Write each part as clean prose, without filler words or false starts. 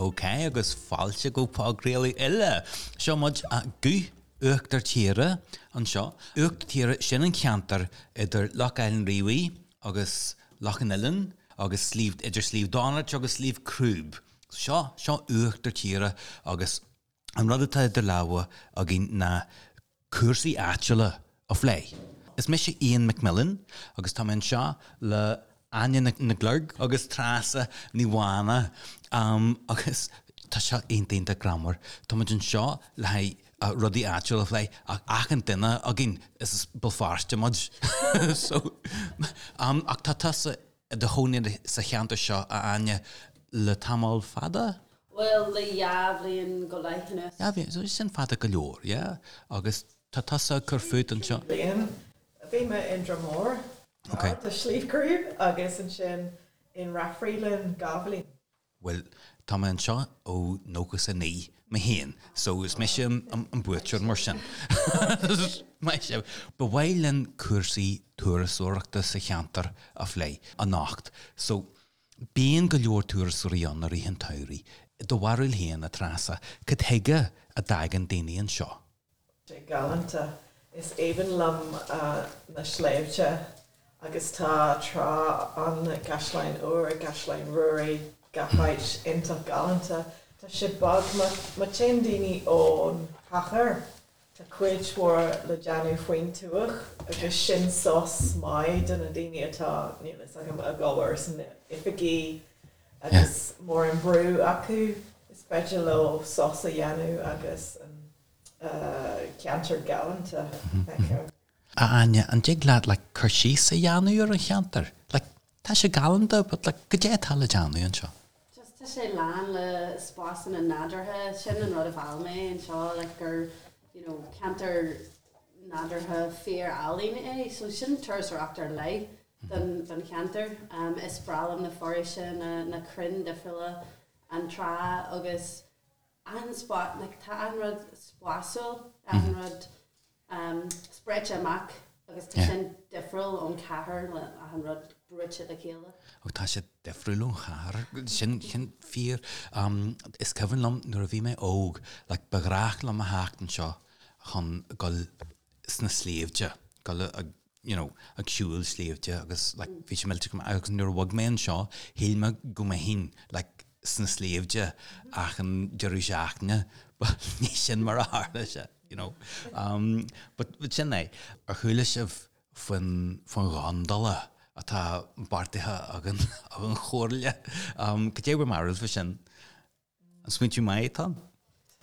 Ok, agus fáilte go podchraoladh eile. Seo muid, Guth Uachtar Tíre anseo. Uachtar Tíre, sin an ceantar idir Loch Aill an Rí agus Loch an Oileáin agus Sliabh, idir Sliabh Donait agus Sliabh Crúb. Seo, seo Uachtar Tíre agus an rud atá idir lámha againn ná cúrsaí áitiúla a phlé. Is mise Ian McMillan agus tá mé anseo le Áine Nic Luirg agus Treasa Ní Mhána agus tá seo iontach iontach greannmhar. Tá muid anseo le haghaidh rudaí áitiúla a phlé ach achan duine againn is as Béal Feirste muid. So, ach tá tusa i do chónaí sa cheantar seo, a Áine, le tamall fada? Bhuel, le dhá bhliain go leith anuas. Dhá bhliain, so sin fada go leor, yeah? Agus tá tusa ag cur fút anseo? Bliain. Bhí mé in Droim Mór, gar do Shliabh Crúb, agus ansin in Rathfriland dhá bhliain. Bhuel, tá mé anseo ó 99 mé féin, so is mise an buaiteoir mar sin. Maith sibh. Ba mhaith linn cúrsaí turasóireachta sa cheantar a phlé anocht. So, bíonn go leor turasóirí ann i rith an tsamhraidh. Do bharúil féin, a Treasa, cad chuige a dtagann daoine anseo? sé galánta. Is aoibhinn liom na sléibhte agus tá trá ann, gCaisleán Úr, gCaisleán Ruairí, gach áit iontach galánta. Tá sé beag, má téann daoine ón chathair, tá cuid mhór le déanamh faoin tuath agus sin sos maith do na daoine atá, níl fhios agam, ag obair sna oifigí agus mórán brú acu, is féidir leo sos a dhéanamh agus an ceantar galánta a fheiceáil. A Áine, an dtig leat like cur síos a dhéanamh ar an cheantar? Like tá sé galánta but like goidé atá le déanamh anseo? Just tá sé lán le spásanna nádúrtha, sin an rud a mheall mé anseo like gur you know ceantar nádúrtha fíor álainn é so sin turasóireacht ar leith don don cheantar. Is breá liom na foraoise, na na crainn difriúla, an trá agus achan spot, like tá achan rud spásúil, achan rud spréite amach agus tá sin difriúil ón chathair le achan rud brúite le chéile. Ó tá sé difriúil ón chathair, sin, sin fíor. Is cuimhin liom nuair a bhí mé óg, like ba ghnách liom a theacht anseo chun dul sna sléibhte, dul ag you know, ag siúl sléibhte agus like bhí sé millteach go maith agus nuair a bhog mé anseo shíl mé go mbeinn like sna sléibhte achan deireadh seachtaine but ní sin mar a tharla sé, you know. Um, but, but sin é. Ar chuala sibh faoin, faoin gondola atá beartaithe ag an, ag an chomhairle? Um, cad é bhur mbarúil faoi sin? An smaointiú maith atá ann?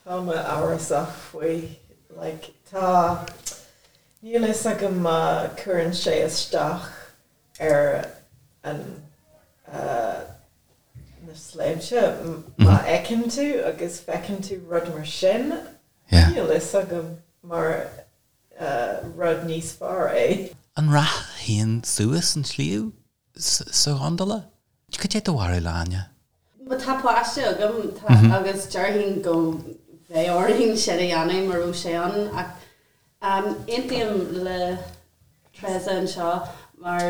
Tá mé amhrasach faoi. Like, tá, níl fhios agam má cuireann sé isteach ar an, na sléibhte, má fheiceann tú agus feiceann tú rud mar sin, níl fhios agam mar rud níos fearr é. An rachfá féin suas an sliabh? sa ghondola? Cad é do bharúil, a Áine? Má tá páiste agam tá agus déarfainn go mbeadh orainn sin a dhéanamh má raibh sé ann ach aontaím le Treasa anseo mar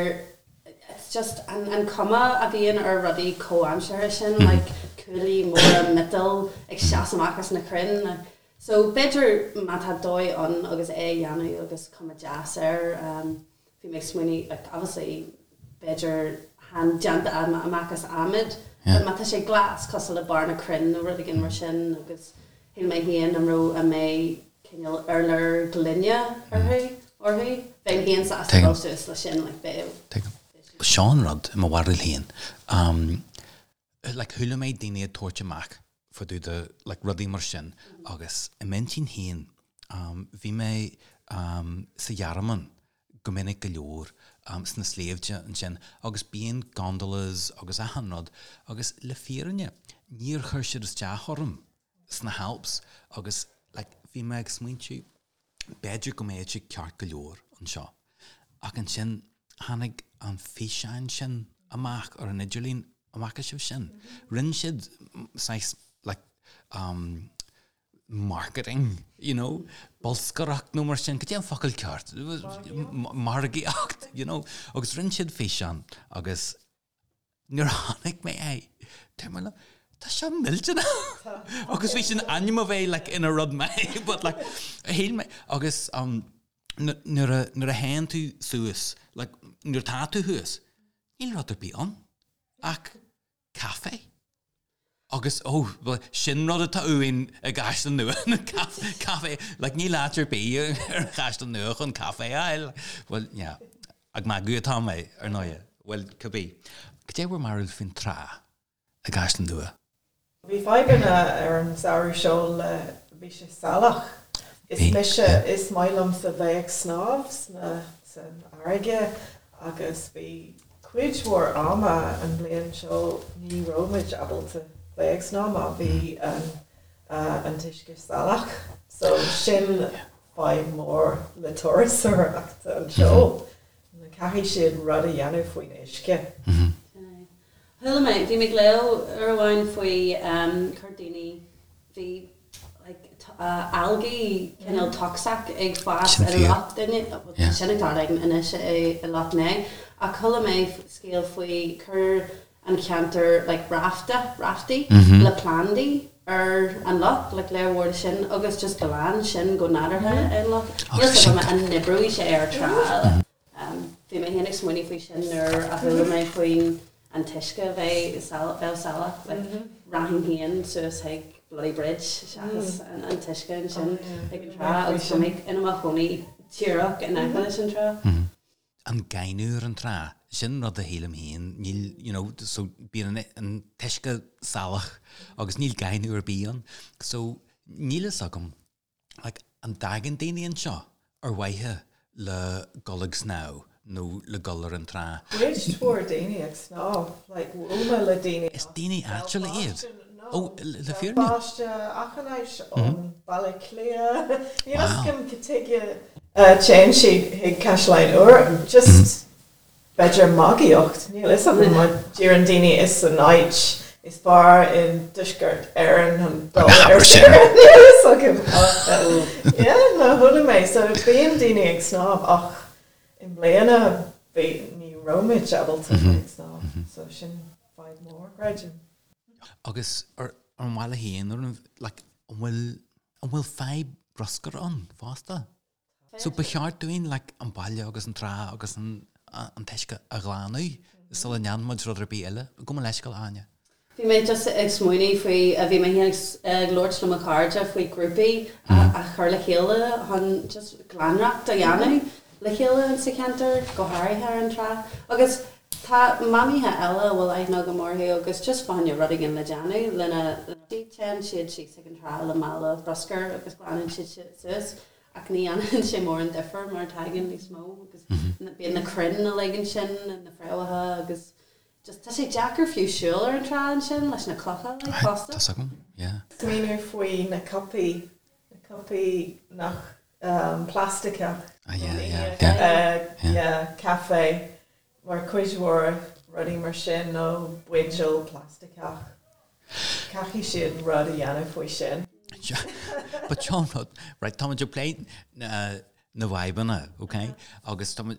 it's just an an cuma a bhíonn ar rudaí comhaimseartha sin like cuaillí móra miotail ag seasamh amach as na crainn so b'fhéidir má tá dóigh ann agus é a dhéanamh agus cuma deas air Bhí mé ag smaoineamh, like, obviously, b'fhéidir chan déanta amach as adhmad, but má tá sé glas, cosúil le barr na crainn nó rud éigin mar sin, agus shíl mé féin an raibh, an mbeidh cineál urlár gloine orthu, orthu, bheinn féin sásta dul suas le sin, like, bheadh. Tuigim. Seo an rud, i mo bharúil féin, like, chuala mé daoine ag tabhairt amach fá dtaobh de like rudaí mar sin agus i m'intinn féin bhí mé sa Ghearmáin go minic go leor sna sléibhte ansin agus bíonn gondolas agus achan rud agus le fírinne níor chuir siad isteach orm sna hAlps agus like bhí mé ag smaointiú b'fhéidir go mbeadh sé ceart go leor anseo ach ansin tháinig an físeán sin amach ar an idirlíon An bhfaca sibh sin? Rinne siad saghas like um marketing, you know, bolscaireacht nó mar sin, cad é an focal ceart? Margaíocht, you know, agus rinne siad físeán agus nuair a chonaic mé é, dúirt mé liom. Tá seo millteanach! Agus bhí sin ainm a bheith like ina rud maith but like shíl mé agus um, nuair a nuair a théann tú suas like nuair atá tú thuas níl rud ar bith ann ach caife. Agus ó well sin rud atá uainn i gCaisleán Nua na caife like níl áit ar bith ar an Chaisleán Nua chun caife a fháil. Well yeah ag magadh atá mé ar ndóigh. Well cibé. Cad é bhur mbarúil faoin trá? i gCaisleán Nua. Bhí fadhbanna ar an samhradh seo le, bhí sé salach. Is mise, is maith liomsa bheith ag snámh sna, san fharraige agus bhí cuid mhór ama an bhliain seo ní raibh muid ábalta bheith ag snámh mar bhí an, an t-uisce salach. So sin fadhb mór le turasóireacht anseo. Caithfidh siad rud a dhéanamh faoin uisce. Chuala mé, bhí mé ag léamh uair amháin faoi chuir daoine, bhí like algae cineál tocsach ag fás i Loch Ness, sin ag tarlú anois i Loch Né, ach chuala mé scéal faoi chuir an ceantar like rafta, raftaí le plandaí ar an loch, like lear mhór de sin agus just glan sin go nádúrtha an loch. Níl 's agam an n-oibreoidh sé ar trá. Bhí mé féin ag smaoineamh faoi sin nuair a chuala mé faoin an t-uisce a bheith bheith salach, like rachainn féin suas chuig Bloody Bridge seachas an t-uisce ansin ag an trá agus tá mé i mo chónaí díreach in aice leis an trá. An gaineamh ar an trá, sin rud a shílim féin, níl, you know, so bíonn an t-uisce salach agus níl gaineamh ar bith ann. So níl fhios agam like, an dtagann daoine anseo ar mhaithe le dul ag snámh nó le dul ar an trá? Cuid mhór daoine ag snámh, like, bhuail mé le daoine Is daoine áitiúla iad? Ó, le fírinne? Béalfáilte, achan áit ón Baile Átha Cliath, níl fhios agam cad tuige téann siad chuig Caisleán Úr, just B'fhéidir magaíocht, níl fhios agam, mar deireann daoine is an áit is fearr i dTuaisceart Éireann chun dul ar saoire, níl fhios agam ach yeah, no, chuala mé, so bíonn daoine ag snámh ach i mbliana bhí, ní raibh muid ábalta ag snámh, so sin fadhb mór, creidim. Agus ar an bhaile féin, ar an, like, an bhfuil, an bhfuil fadhb bruscair ann fosta? So ba cheart dúinn like an baile agus an trá agus an an t-uisce a ghlanadh sula ndéanann muid rud ar bith eile. Gabh mo leithscéal, Áine. Bhí mé just ag smaoineamh faoi, bhí mé féin ag labhairt le mo chairde faoi grúpaí a chur le chéile chun just glaineacht a dhéanamh le chéile sa cheantar, go háirithe ar an trá. Agus tá mamaithe eile a bhfuil aithne agam orthu agus just fá choinne rud éigin le déanamh lena téann siad síos ag an trá le mála bruscair agus glanann siad suas. Ach ní dhéanann sé mórán difear mar tagann níos mó agus bíonn na crainn uilig ansin, na fréamhacha agus just tá sé deacair fiú siúl ar an trá ansin leis na clocha uilig fosta. Tá's agam, yeah. Smaoineamh faoi na cupaí, na cupaí nach plaisteach. Ah yeah, yeah, yeah. Yeah, caife. Mar cuid mhór rudaí mar sin nó buidéal plaisteach, caithfidh siad rud a dhéanamh faoi sin. But seo an rud, right, táimid ag plé na bhfadhbanna, ok? Agus táimid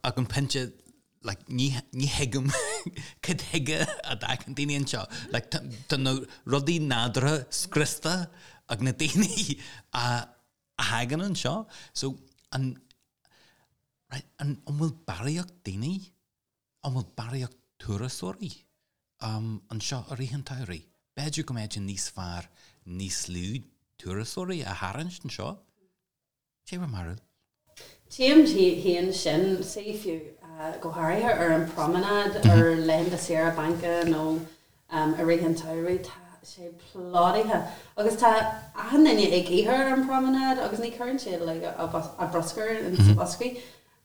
ag an pointe, like, ní, ní thuigim cad chuige a dtagann daoine anseo. Like, tá na rudaí nádúrtha scriosta ag na daoine a thagann anseo. So, an, Right, an bhfuil barraíocht daoine, an bhfuil barraíocht turasóirí anseo i rith an tsamhraidh? B'fhéidir go mbeadh sé níos fearr níos lú turasóirí a tharraingt anseo? Cé bhur mbarúil? Tchím féin sin, sea, fiú go háirithe ar an promenade ar laethanta saoire bainc nó I rith an tsamhraidh tá sé plódaithe agus tá achan duine ag ithe ar an promenade agus ní chuireann siad like a bruscar in sa boscaí.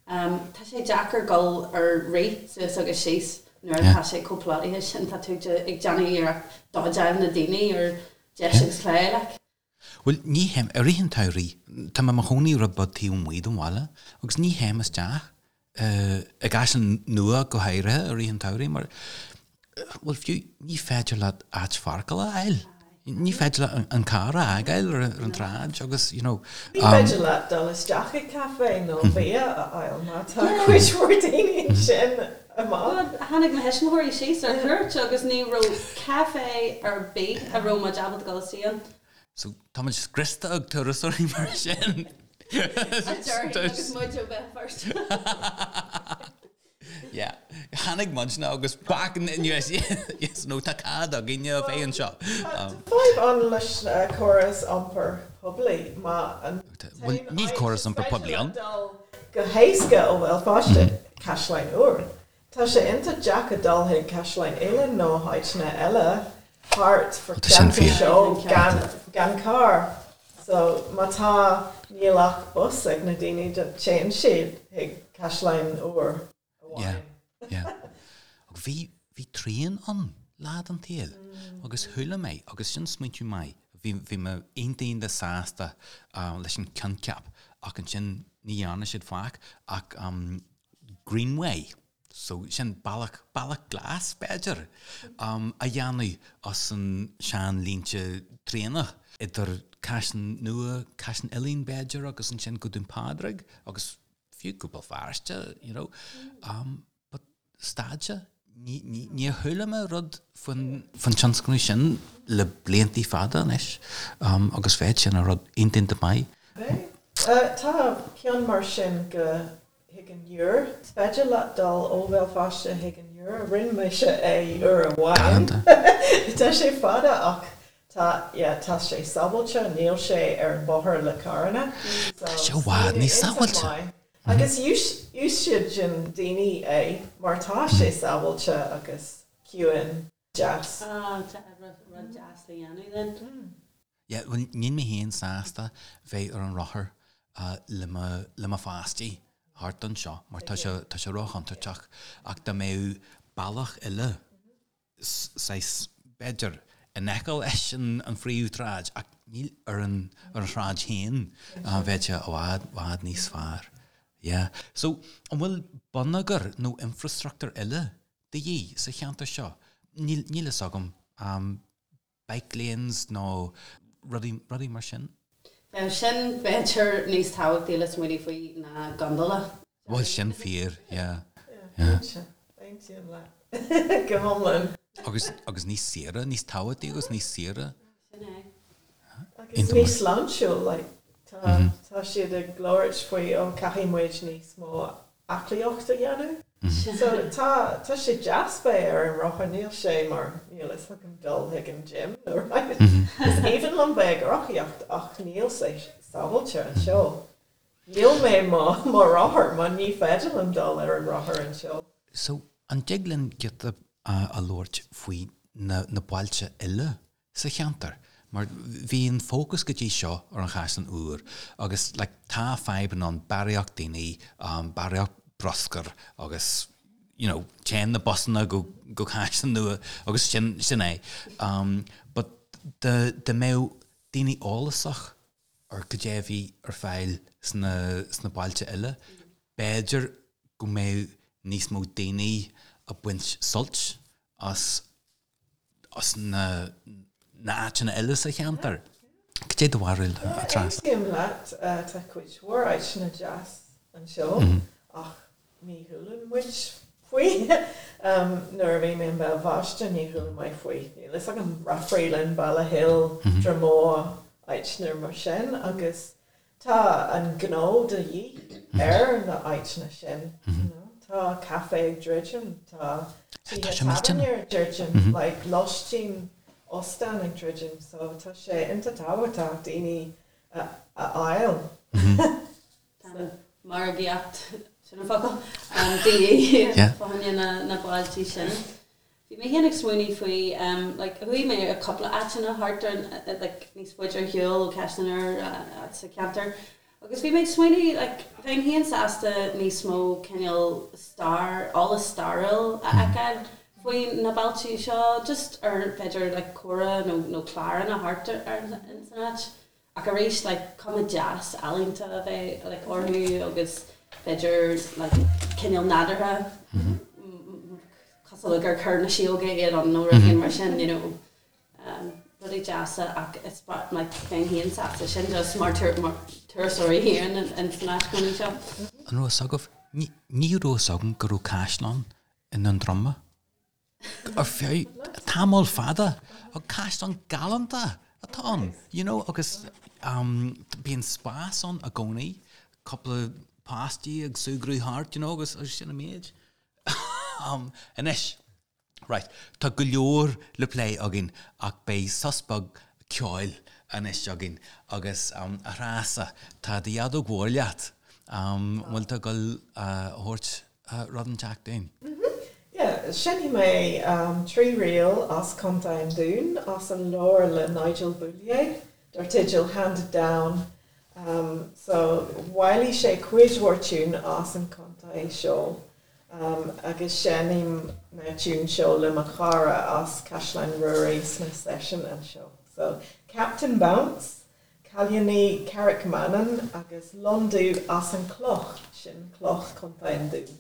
Tá sé deacair dul ar rith suas agus síos nuair atá sé chomh plódaithe sin, tá tú ag déanamh iarracht dodgeáil na daoine ar dheis agus clé like. Bhuel, ní théim, i rith an tsamhraidh, tá mé i mo chónaí rud beag taobh amuigh den bhaile agus ní théim isteach i gCaisleán Nua go háirithe i rith an tsamhraidh mar, bhuel, fiú, ní féidir leat áit pháirceála a fháil. Ní féidir leat an carr a fhágáil ar an tsráid agus, you know. Ní féidir leat dul isteach i gcaife nó bia a fháil má tá cuid mhór daoine ansin amach. Tháinig mo thuismitheoirí síos ar cuairt agus ní raibh caife ar bith a raibh muid ábalta dul istigh ann. So tá muid scriosta ag turasóirí mar sin. A déarfainn agus muid ó Bhéal Feirste. Yeah. Tháinig muidne agus back in the US yes no tá cead againne a bheith anseo. Tá fadhb ann leis na córas iompair poiblí má an Bhuel níl córas iompair poiblí ann. dul go héasca ó Bhéal Feirste Caisleán Úr. Tá sé iontach deacair dul chuig Caisleán Uidhilín nó áiteanna eile thart fá Tá sin cheantar fíor. seo gan gan carr. So má tá níl ach bus ag na daoine téann siad chuig Caisleán Úr amháin. Yeah, yeah. Ach bhí, bhí traein ann lá den tsaol agus chuala mé, agus sin smaointiú maith, bhí, bhí mé iontach iontach sásta leis an coincheap ach ansin ní dhearna siad faic ach Greenway, So, sin bealach, bealach glas, b'fhéidir, a dhéanamh as an sean-línte traenach idir Caisleán Nua, Caisleán Uidhilín, b'fhéidir, agus ansin go Dún Pádraig agus fiú go Béal Feirste, you know. But stad sé. Ní, ní, níor chuala mé rud faoin, faoin tionscnamh sin le bliantaí fada anois agus bheadh sin ina rud iontach iontach maith. Tá ceann mar sin go chuig an Iúr. Is féidir leat dul ó Bhéal Feirste chuig an Iúr. Rinne mise é uair amháin. Tá sé fada ach tá, yeah, tá sé sábháilte, níl sé ar an bóthar le carranna. Tá sé i bhfad níos sábháilte. Agus úsáideann daoine é mar tá sé sábháilte agus ciúin, deas. Ah, tá rud deas le dhéanamh then. Yeah, bhuel, níl mé féin sásta bheith ar an rothar le mo, le mo pháistí thart anseo mar tá sé, tá sé róchontúirteach ach dá mbeadh bealach eile, saghas, b'fhéidir, in aice leis an, an phríomhshráid ach níl ar an, ar an tsráid féin, bheadh sé i bhfad, bhfad níos fearr. Yeah. So, an bhfuil bonneagar nó infrastruchtúr eile de dhíth sa cheantar seo? Níl, níl fhios agam. Bike lanes nó rudaí, rudaí mar sin. Bheadh sin, b'fhéidir, níos tábhachtaí le smaoineamh faoi ná gondola. Bhuel, sin fíor, yeah. Yeah, cinnte. Aontaím leat go hiomlán. Agus, agus níos saoire, níos tábhachtaí agus níos saoire. Sin é. Agus níos sláintiúil, like, tá, tá siad ag labhairt faoi, oh, caithfidh muid níos mó aclaíocht a dhéanamh. So tá, tá sé deas bheith ar an rothar, níl sé mar, níl fhios agam dul chuig an gym nó right. Is aoibhinn liom bheith ag rothaíocht ach níl sé sábháilte anseo. Níl mé mo, mo rothar mar ní féidir liom dul ar an rothar anseo. So an dtig linn giota a labhairt faoi na, na bailte eile sa cheantar mar bhí an fócas go dtí seo ar an Chaisleán Úr agus like tá fadhbanna ann, barraíocht daoine, barraíocht bruscair agus you know téann na busanna go go Caisleán Nua agus sin sin é. But dá dá mbeadh daoine eolasach ar cad é a bhí ar fáil sna sna bailte eile, b'fhéidir go mbeadh níos mó daoine ag baint sult as as na háiteanna eile sa cheantar. Cad é do bharúil, a Treasa? Aontaím leat, tá cuid mhór áiteanna deas anseo ach ní chualann muid faoi. Nuair a bhí mé i mBéal Feirste ní chuala mé faoi, níl fhios agam, Rathfriland, Ballyhill, Dromore, áiteanna mar sin agus Tá an gnó de dhíth ar na áiteanna sin, you know. Tá caife ag druidim, tá tithe tábhairne ag druidim, like lóistín, óstán ag druidim, so tá sé iontach tábhachtach daoine a fháil. Tá margaíocht, sin an focal, de dhíth fá choinne na bailte sin. Bhí mé féin ag smaoineamh faoi like chuaigh mé ar cúpla áiteanna thart ar like níos faide ar shiúl ó Caisleán Úr sa cheantar agus bhí mé ag smaoineamh like bheinn féin sásta níos mó cineál stair, eolas stairiúil a fheiceáil faoi na bailte seo just ar b'fhéidir like comhrá nó nó cláranna thart ar in san áit. Ach arís like cuma deas ealaíonta a bheith like orthu agus b'fhéidir like cineál nádúrtha cosúil le gur chuir na síóga iad ann nó rud éigin mar sin you know. Rudaí deasa ach is like bheinn féin sásta sin just mar turasóirí féin in san áit cónaí seo. An raibh fhios agaibh? Ní raibh fhios agam go raibh caisleán i nDún Droma ar feadh tamall fada. Ach caisleán galánta atá ann, you know, agus bíonn spás ann i gcónaí, cúpla páistí ag súgradh thart, you know, agus sin an méid. Anois. Right, tá go leor le plé againn ach beidh sos beag ceoil anois againn agus a Threasa, tá do fheadóg mhór leat, an bhfuil tú ag dul a thabhairt rud inteacht dúinn? Yeah, seinnfidh mé 3 ríl as Contae an Dúin as an leabhar le Nigel Boulier dar teideal Handed Down. So, bhailigh sé cuid mhór tiún as an contae seo. Agus seinnim na tiúin seo le mo chara as Caisleán Ruairí sna seisiúin anseo. So, Captain Bounce, Cailíní Carraig Manainn agus Lon Dubh as an Cloch, sin Cloch Contae an Dúin.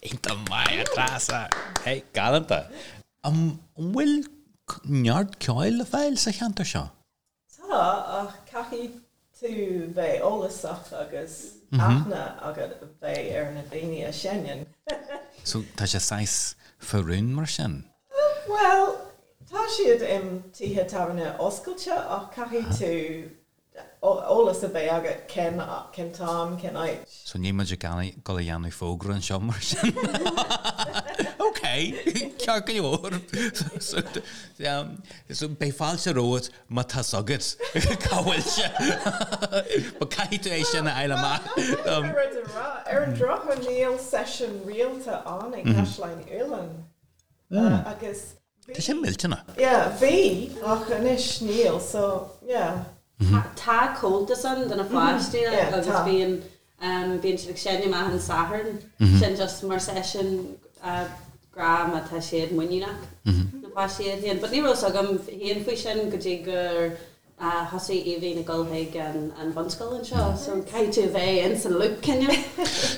Iontach maith, a Threasa! Hey, galánta! An bhfuil neart ceoil le fáil sa cheantar seo? Tá, ach caithfidh tú bheith eolasach agus aithne agat bheith ar na daoine a sheinneann. So tá sé saghas faoi rún mar sin? Bhuel, tá siad i tithe tábhairne oscailte ach caithfidh tú eolas a bheith agat cén cén t-am, cén áit. So níl muid ag dul a dhéanamh fógra anseo mar sin. Ok, ceart go leor. So, so beidh fáilte romhat má tá 's agat cá bhfuil sé. But caithfidh tú é sin a fháil amach. Rud a rá, ar an drochuair níl seisiún rialta ann i gCaisleán Uidhilín. Agus Tá sé millteanach. Yeah, bhí, ach anois níl, so yeah. Tá comhaltas ann do na pháistí agus bíonn bíonn siad ag seinm achan Satharn, sin just mar seisiún. grá má tá siad muiníneach, na páistí iad féin. But ní raibh fhios agam féin faoi sin go dtí gur thosaigh Aoibhinn ag dul chuig an bhunscoil anseo. So caithfidh tú a bheith in san loop cineál.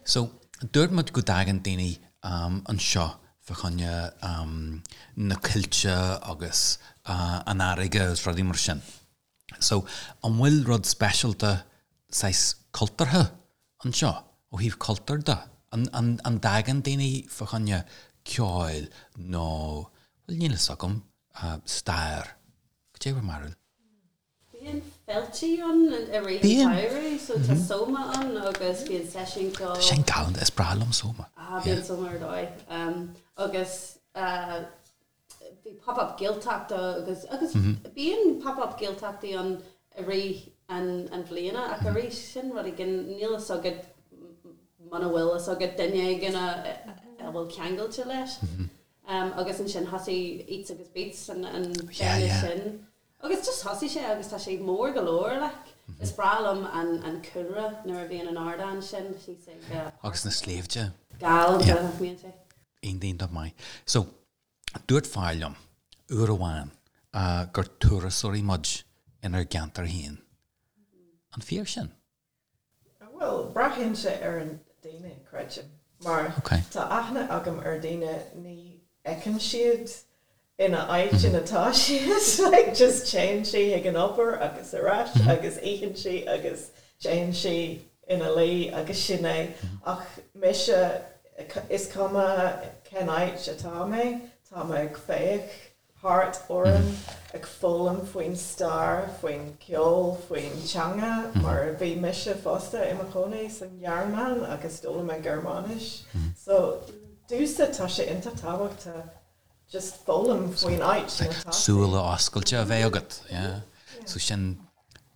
So dúirt muid go dtagann daoine anseo fá choinne na coillte agus an fharraige agus rudaí mar sin. So, an bhfuil rud speisialta saghas cultúrtha anseo, ó thaobh cultúir de? An, an, an dtagann daoine fá choinne ceoil nó, bhuel níl fhios agam, stair? Cad é bhur mbarúil? Bíonn féiltí ann i rith an tsamhraidh, so tá Soma ann agus bíonn seisiún ceoil. Tá sin galánta, is breá liom Soma. Ah, bíonn Soma ar dóigh. Agus bhí pop up Gaeltachta agus agus bíonn pop up Gaeltachtaí ann i rith an an bhliana ach arís sin rud éigin níl fhios agat muna bhfuil fhios agat duine éigin a a bhfuil ceangailte leis. Agus ansin thosaigh Eats agus Beats an an féile sin agus just thosaigh sé agus tá sé mór go leor like. Is breá liom an an cúlra nuair a bhíonn an ardán sin síos ag Agus na sléibhte. Galánta nach mbíonn sé. Iontach maith. So, dúirt fear liom uair amháin gur turasóirí muid inár gceantar féin. An fíor sin? Bhuel, braitheann sé ar an daoine, creidim. Mar tá aithne agam ar daoine ní fheiceann siad ina áit ina tá siad, like just téann sí ag an obair agus ar ais agus itheann sí agus téann sí ina luí agus sin é. Ach mise, is cuma cén áit atá mé, tá mé ag féach thart orm, ag foghlaim faoin stair, faoin ceol, faoin teanga, mar bhí mise fosta i mo chónaí san Ghearmáin agus d'fhoghlaim mé Gearmáinis. So, domhsa tá sé iontach tábhachtach just foghlaim faoin áit ina tá tú. Súile oscailte a bheith agat, yeah. So sin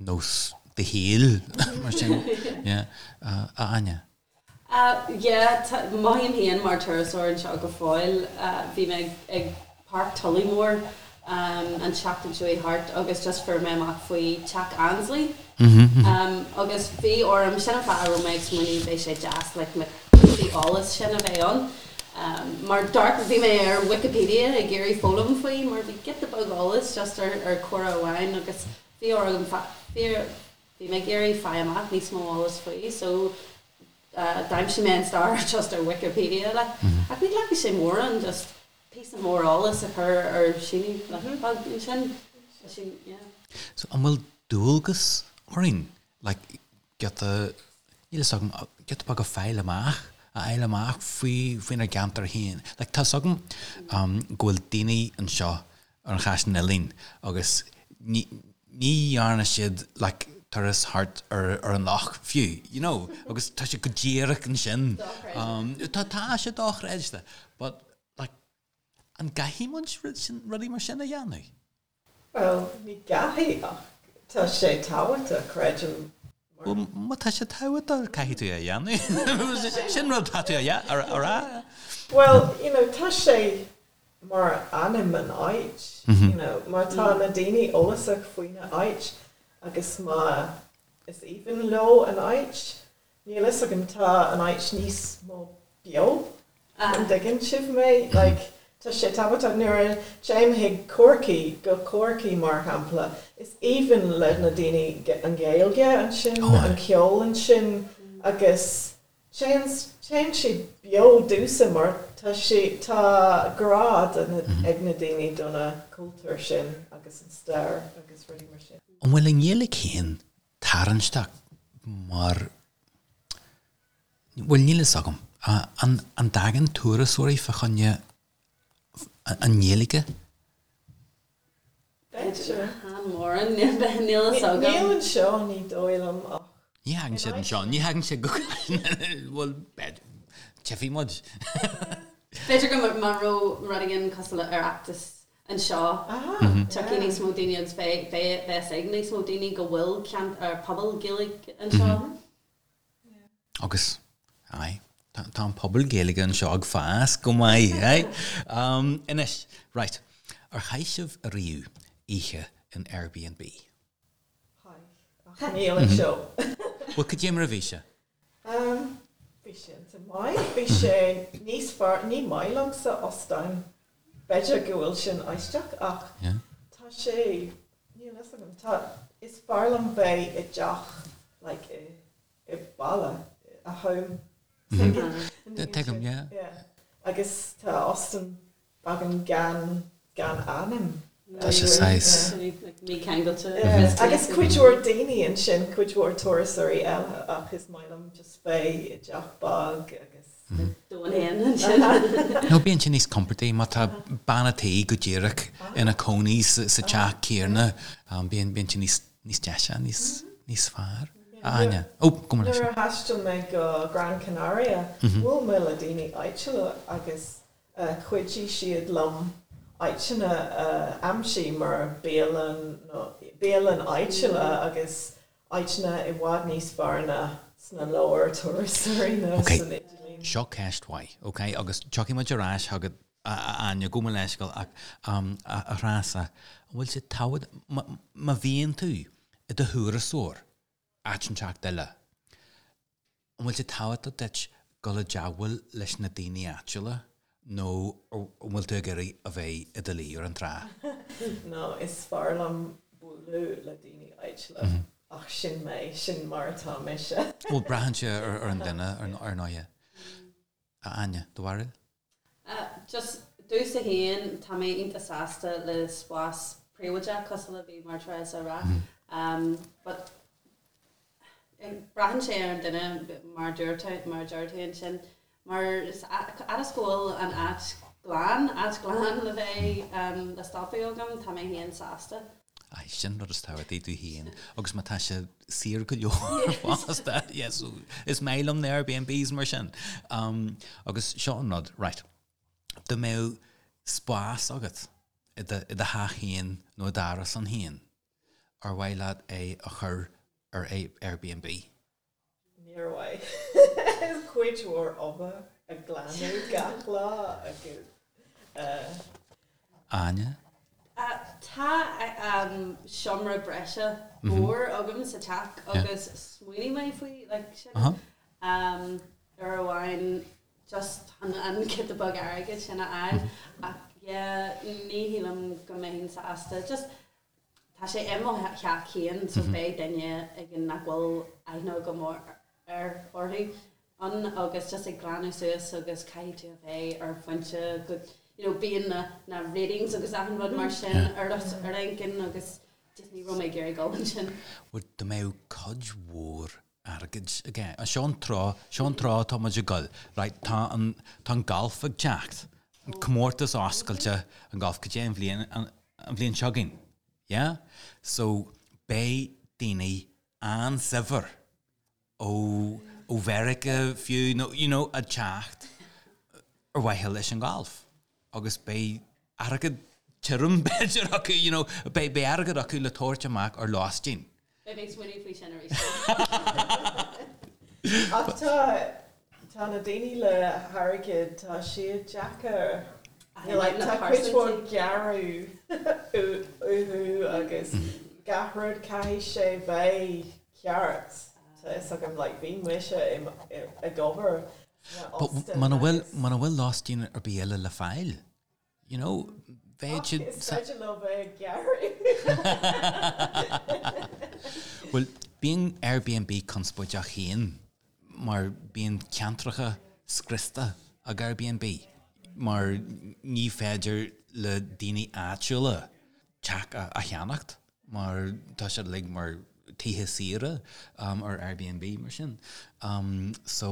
nós do shaoil, mar sin, yeah. A Áine? Yeah, mothaím féin mar turasóir anseo go fóill. Bhí mé ag Páirc Tollymore an tseachtain seo thart agus just fuair mé amach faoi Teach Annesley agus bhí orm, sin an fáth a raibh mé ag smaoineamh beidh sé deas like na píosaí eolais sin a bheith ann mar d'amharc, bhí mé ar Wikipedia ag iarraidh foghlaim faoi mar bhí giota beag eolais just ar ar comhrá amháin agus bhí orm, bhí Bhí mé ag iarraidh fáil amach níos mó eolas faoi so d'aimsigh mé an stair just ar Wikipedia like. Ach ní ghlacfaidh sé mórán just píosa mór eolais a chur ar síneadh like beag ansin. Tá sin, yeah. So an bhfuil dualgas orainn like giota, níl fhios agam, giota beag a fáil amach, a fháil amach faoi, faoinár gceantar féin? Like tá fhios agam go bhfuil daoine anseo ar an Chaisleán Uidhilín agus ní dhearna siad like turas thart ar ar an loch fiú, you know, agus tá sé go díreach ansin. Tá tá sé dochreidte, but like an gcaithfidh muid rudaí mar sin a dhéanamh? Bhuel, ní gcaithfidh ach tá sé tábhachtach, creidim. Bhuel, má tá sé tábhachtach, caithfidh tú é a dhéanamh. Sin rud atá tú a rá. Bhuel, you know, tá sé mar ainm an áit, you know, má tá na daoine eolasach faoina áit agus má is aoibhinn leo an áit, níl fhios agam, tá an áit níos mó beo, an dtuigeann sibh mé? Like, tá sé tábhachtach nuair a téim chuig Corcaigh, go Corcaigh mar shampla, is aoibhinn le na daoine an Ghaeilge ansin, an ceol ansin agus Téann, téann sé beo domhsa mar tá sé, tá grá do na, ag na daoine do na cultúr sin agus an stair agus rudaí mar sin. An bhfuil an Ghaeilge féin tarraingteach mar, bhuel níl fhios agam, an, an dtagann turasóirí fá choinne an nGaeilge? B'fhéidir. Chan mórán, níl fhios agam. Níl anseo, ní dóigh liom ach. Ní thagann siad anseo, ní thagann siad go, bhuel, tchífidh muid. B'fhéidir go má raibh rud éigin cosúil le Oireachtas anseo, tiocfaidh níos mó daoine agus beidh fhios ag níos mó daoine go bhfuil ceantar, pobal Gaeilge anseo. Agus, aye, tá an pobal Gaeilge anseo ag fás go maith, aye. Anois, right, ar chaith sibh ariamh oíche in Airbnb? Chaith, ach níl anseo. Bhuel, cad é mar a bhí sé? Bhí sé iontach maith. Bhí sé níos fearr, ní maith liomsa óstáin. B'fhéidir go bhfuil sin aisteach ach tá sé, níl fhios agam, tá, is fearr liom bheith i dteach like i i baile, a home. Tuigim, yeah. Yeah. Agus tá óstán beagán gan, gan anam. Tá sé saghas. Mícheangailte. Agus cuid mhór daoine ansin, cuid mhór turasóirí eile ach is maith liom just bheith i dteach beag agus. Domhan féin ansin. No, bíonn sé níos compordaí má tá bean a' tí go díreach ina cónaí sa teach céanna, bíonn sé níos níos deise, níos, níos fearr. A Áine. Ó, gabh mo leithscéal. Nuair a thaistil mé go Gran Canaria, bhuail mé le daoine áitiúla agus chuidigh siad liom áiteanna a aimsiú mar bialann nó bialann áitiúla agus áiteanna i bhfad níos fearr ná sna leabhair turasóirí nó san idirlíon. Seo ceist mhaith, ok, agus tiocfaidh muid ar ais chugat a Áine, gabh mo leithscéal ach a Threasa, an bhfuil sé tábhacht, má bhíonn tú i do thurasóir áit inteacht eile, an bhfuil sé tábhachtach duit dul i dteagmháil leis na daoine áitiúla nó an bhfuil tú ag iarraidh a bheith i do luí ar an trá? No, is fearr liom bualadh le daoine áitiúla ach sin mé, sin mar atá mise. Bhuel, braitheann sé ar an duine, ar ndóighe. A Áine, do bharúil? Just domhsa féin, tá mé iontach sásta le spás príobháideach cosúil le bhí mar Teresa a rá. But braitheann sé ar an duine mar dúirt mar a deir tú ansin. Mar fhad is go bhfuil an áit glan, áit glan le bheith le stopadh agam, tá mé féin sásta. Aye, sin rud is tábhachtaí tú féin agus má tá sé saor go leor fosta, yeah, so is maith liom na Airbnbs mar sin. Um, agus seo an rud, right, dá mbeadh spás agat i do, i do theach féin nó i d'árasán féin, ar mhaith leat é a chur ar Airbnb? Níor mhaith. Is cuid mhór obair a glanadh gach lá agus. Áine? Tá seomra breise mór agam sa teach agus smaoinigh mé faoi like sin uair amháin just chun an giota beag airgid sin a fháil ach yeah ní shílim go mbeinn sásta just Tá sé i mo theach féin so beidh duine éigin nach bhfuil aithne agam air, orthu ann agus just ag glanadh suas agus caithfidh tú a bheith ar phointe go you know bíonn na na ratings agus achan rud mar sin ar ar intinn agus just ní raibh mé ag iarraidh dul ansin. Bhuel dá mbeadh cuid mhór airgid aige. Seo an treo, seo an treo atá muid ag dul. Right, tá an, tá an galf ag teacht. An comórtas oscailte, an galf, cad é an bhliain, an, an bhliain seo chugainn. Yeah? So, beidh daoine an-saibhir ó, ó Mheiriceá fiú, nó, you know, ag teacht ar mhaithe leis an galf. Agus beidh airgead tirim, b'fhéidir, acu, you know, beidh, beidh airgead acu le tabhairt amach ar lóistín. Beidh mé ag smaoineamh faoi sin arís. Ach tá, tá na daoine le hairgead, tá siad deacair. Like, tá cuid mhór gearradh uathu agus gach rud caithfidh sé bheith ceart. Tá fhios agam, like, bhí mise ag obair sna But óstáin muna bhfuil, agus. muna bhfuil lóistín ar bith eile le fáil, You know, bheadh siad. Is féidir leo bheith ag gearradh. Bhuel, bíonn Airbnb conspóideach féin mar bíonn ceantracha scriosta ag Airbnb mar ní féidir le daoine áitiúla teach a cheannacht mar tá siad uilig mar tithe saoire ar Airbnb mar sin. So,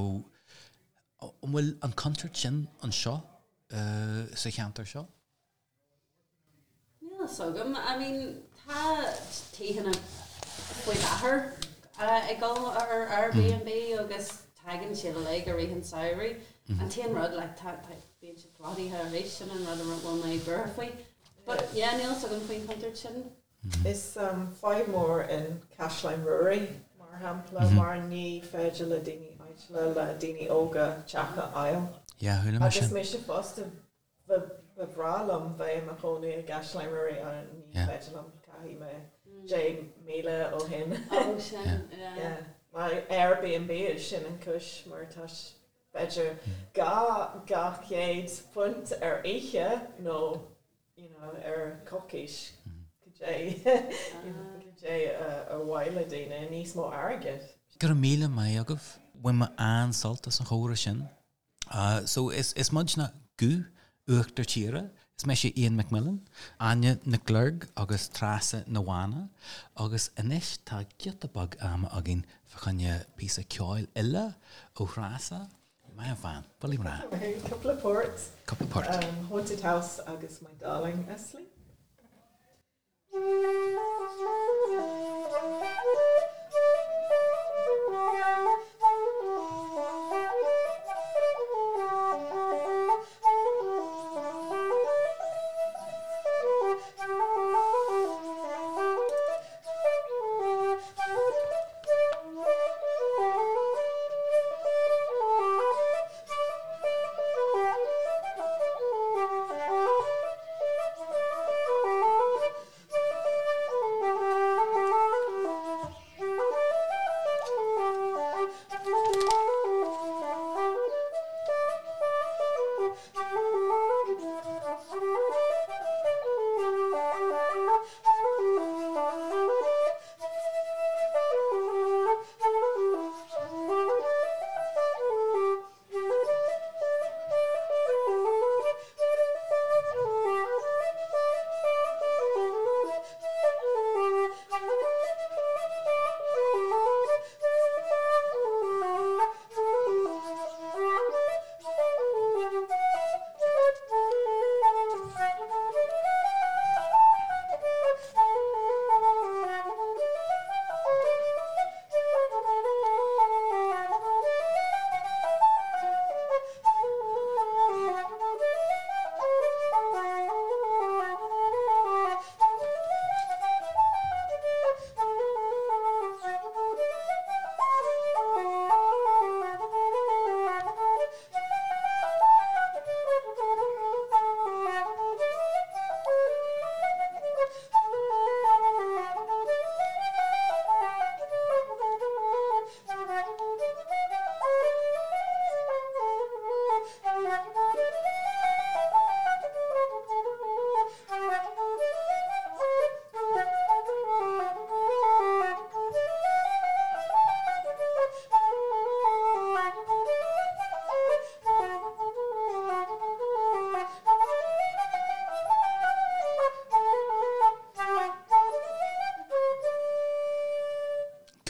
an bhfuil an contúirt sin anseo? sa cheantar seo? Níl a fhios agam. I mean, tá tithe faoi láthair ag dul ar Airbnb agus tagann siad uilig i rith an samhraidh. An t-aon rud, like, tá, tá, bíonn siad plódaithe arís, sin an rud a bhfuil mé buartha faoi. But yeah, níl a fhios agam faoin chontúirt sin. Is fadhb mór in Caisleán Ruairí, mar shampla, mar ní féidir le daoine áitiúla, le daoine óga teach a fháil. Yeah, chuala mé Agus sin. mise fosta, ba bhreá liom bheith i mo chónaí i gCaisleán Ruairí ach ní féidir liom, caithfidh mé 10,000 ó shin. Oh, sin, yeah. Yeah. Mar Airbnb, sin an cúis mar tá. b'fhéidir £200 ar oíche nó you know ar coicís cad é you know cad é ar mhaith le daoine níos mó airgid. Go raibh míle maith agaibh. Bhain mé an-sult as an chomhrá sin. So is is muidne Guth Uachtar Tíre, is mise Ian McMillan, Áine Nic Luirg agus Treasa Ní Mhána agus anois tá giota beag ama againn fá choinne píosa ceoil eile ó Threasa. Maith an bhean, buille mná. Cúpla port. Cúpla port. Haunted House agus My Darling Asleep.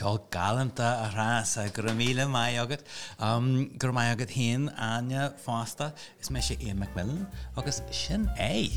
Ceol galánta a Threasa, go raibh míle maith agat. Go raibh maith agat féin, Áine, fosta. Is mise Ian McMillan agus sin é.